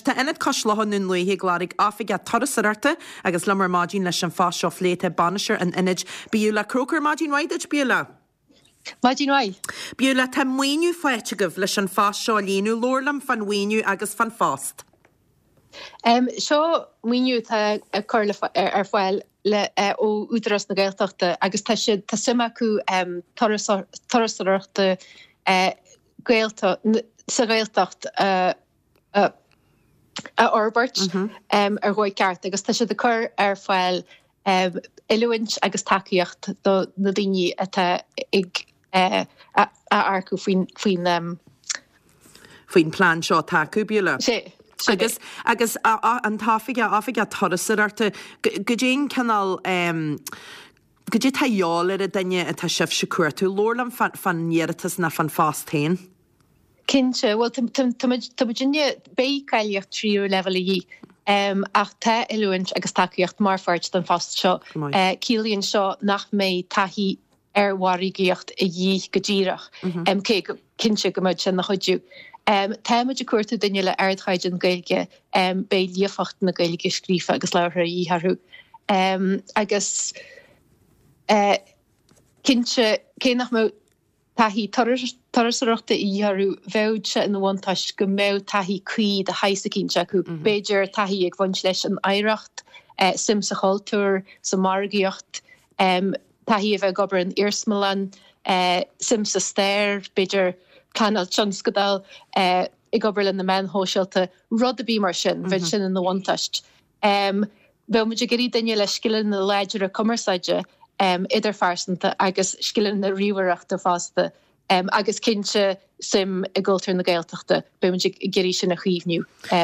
tá Ionad Cois Locha i nDún Lúiche ag lorg oifigeach turasóireachta agus liom ar maidin leis an phost seo a phlé tá bainisteoir an ionaid, Beulah Croker. Maidin mhaith duit, Beulah. Maidin mhaith. Beulah, tá maoiniú faighte agaibh leis an phost seo a líonadh. Labhair liom fán mhaoiniú agus fán phost. Seo maoiniú atá á cur ar fáil ó Údarás na Gaeltachta agus tá siad, tá suim acu turasóireachta sa Ghaeltacht a fhorbairt ar dhóigh ceart agus tá siad ag cur ar fáil oiliúint agus tacaíocht do na daoine atá ag a earcú faoin faoin. faoin plean seo atá acu, Beulah. Sé, sin é. Agus, agus an t-oifigeach, oifigeach turasóireachta, goidé an cineál, goidé atá a dhíobháil ar an duine atá sibhse ag cuartú? Labhair liom fán iarratas ná fán phost féin. Cinnte, bhuel tá muid, tá muidinne, beidh cáilíocht tríú leibhéal a dhíth ach tá oiliúint agus tacaíocht mar pháirt den phost seo. Ciallaíonn seo nach mbeidh taithí ar mhargaíocht a dhíth go díreach, cé go cinnte go mbeidh sé ina chuidiú. Tá muid ag cuartú duine le ardchaighdeán Gaeilge, beidh líofacht na Gaeilge scríofa agus labhartha a dhíth orthu. Agus cinnte, cé nach mbeadh taithí turasóireachta a dhíth orthu, bheadh sé ina bhuntáiste go mbeadh taithí cuí de shaghas eicínt acu, b'fhéidir taithí ag bhaint leis an oidhreacht, suim sa chultúr, sa mhargaíocht, taithí a bheith ag obair in iarsmalann, suim sa stair, b'fhéidir pleanáil tionscadail, ag obair le na meáin shóisialta, rud ar bith mar sin, bheadh sin ina bhuntáiste. Bheadh muid ag iarraidh duine le scileanna láidre cumarsáide idirphearsanta agus scileanna ríomhaireachta fosta agus cinnte suim i gcultúr na Gaeltachta. Beidh muid ag iarraidh sin a chaomhnú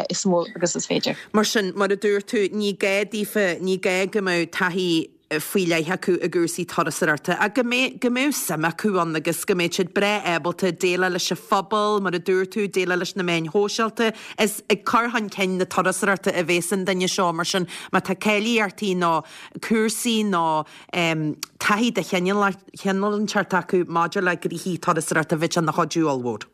is mó agus is féidir. Mar sin, mar a dúirt tú, ní gá daofa, ní gá go mbeadh taithí faoi leith acu i gcúrsaí turasóireachta ach go mbeadh, go mbeadh suim acu ann agus go mbeadh siad breá ábalta déileáil leis an phobal, mar a dúirt tú, déileáil leis na meáin shóisialta. Is ag cur chun cinn na turasóireachta a bhéas an duine seo, mar sin má tá cáilíochtaí nó cúrsaí nó taithí de chineál inteacht acu maidir le gnoithí turasóireachta bheadh sé ina chuidiú ollmhór.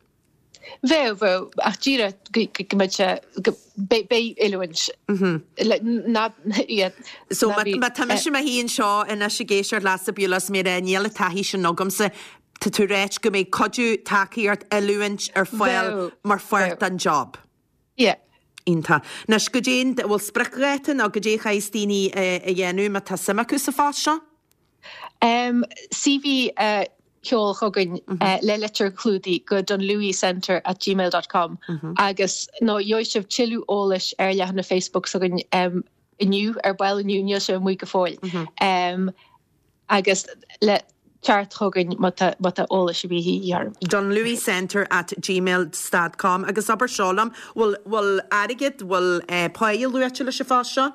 Bheadh, bheadh, ach díreach go mbeadh sé, go, beidh oiliúint le, ná, yeah, So ná bí, má tá mise i mo shuí anseo anois ag éisteacht leatsa Beulah is mé ag rá níl an taithí sin agamsa, tá tú ag ráit go mbeidh cuidiú, tacaíocht, oiliúint ar fáil Bheadh, mar pháirt bheadh. den job. Yeah. Iontach. Anois, goidé an, bhfuil spriocdháta nó goidé a chaithfeas daoine a dhéanamh má tá suim acu sa phost seo? CV a sheol chugainn le litir chlúdaigh go dunlewycentre at gmail dot com agus nó gheobhaidh sibh tuilleadh eolais ar leathanach Facebook s'againn inniu, ar ball inniu, níl sé amuigh go fóill. Agus le teacht chugainn má tá má tá eolas ar bith a dhíth oraibh. dunlewycentre at gmail stad com agus abair seo liom, bhfuil bhfuil airgead, bhfuil páighe luaite leis an phost seo?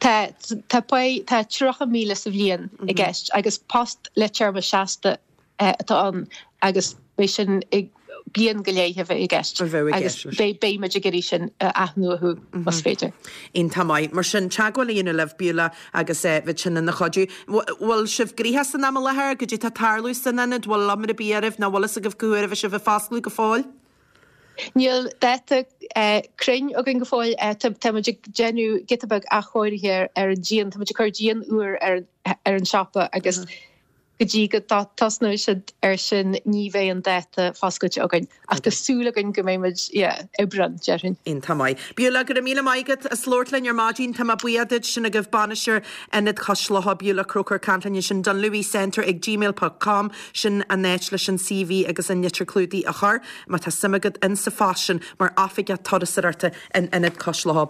Tá, tá páighe, tá 30,000 sa bhliain i gceist agus post le téarma seasta atá ann agus beidh sin i bliain go leith a bheidh i gceist A bheidh i agus gceist leis. beidh, beidh muid ag iarraidh sin a athnuachú más féidir. Iontach maith. Mar sin, teagmháil a dhéanamh libh, Beulah, agus bheadh sin ina chuidiú. Bhfuil sibh gnoitheach san am i láthair? Goidé tá ag tarlú san ionad? Bhfuil iomrá ar bith oraibh nó bhfuil fhios agaibh cá huair a bheidh sibh ag foscladh go fóill? Níl dáta cruinn againn go fóill. Tá muid ag déanamh giota beag athchóirithe ar an díon. Tá muid ag cur díon úr ar an siopa agus go dtí go dtosnóidh siad air sin ní bheidh an dáta foscailte againn. Ach tá súil againn go mbeidh muid, yeah, Aibreán, déarfainn. Iontach maith. Beulah, go raibh míle maith agat as labhairt linn ar maidin. Tá mé buíoch duit. Sin agaibh bainisteoir Ionad Chois Locha, Beulah Croker, ag caint linn ansin. Dunlewycentre ag gmail ponc com. Sin an áit leis an CV agus an litir clúdaigh a chur, má tá suim agat in sa phost sin mar oifigeach turasóireachta in Ionad Cois Locha.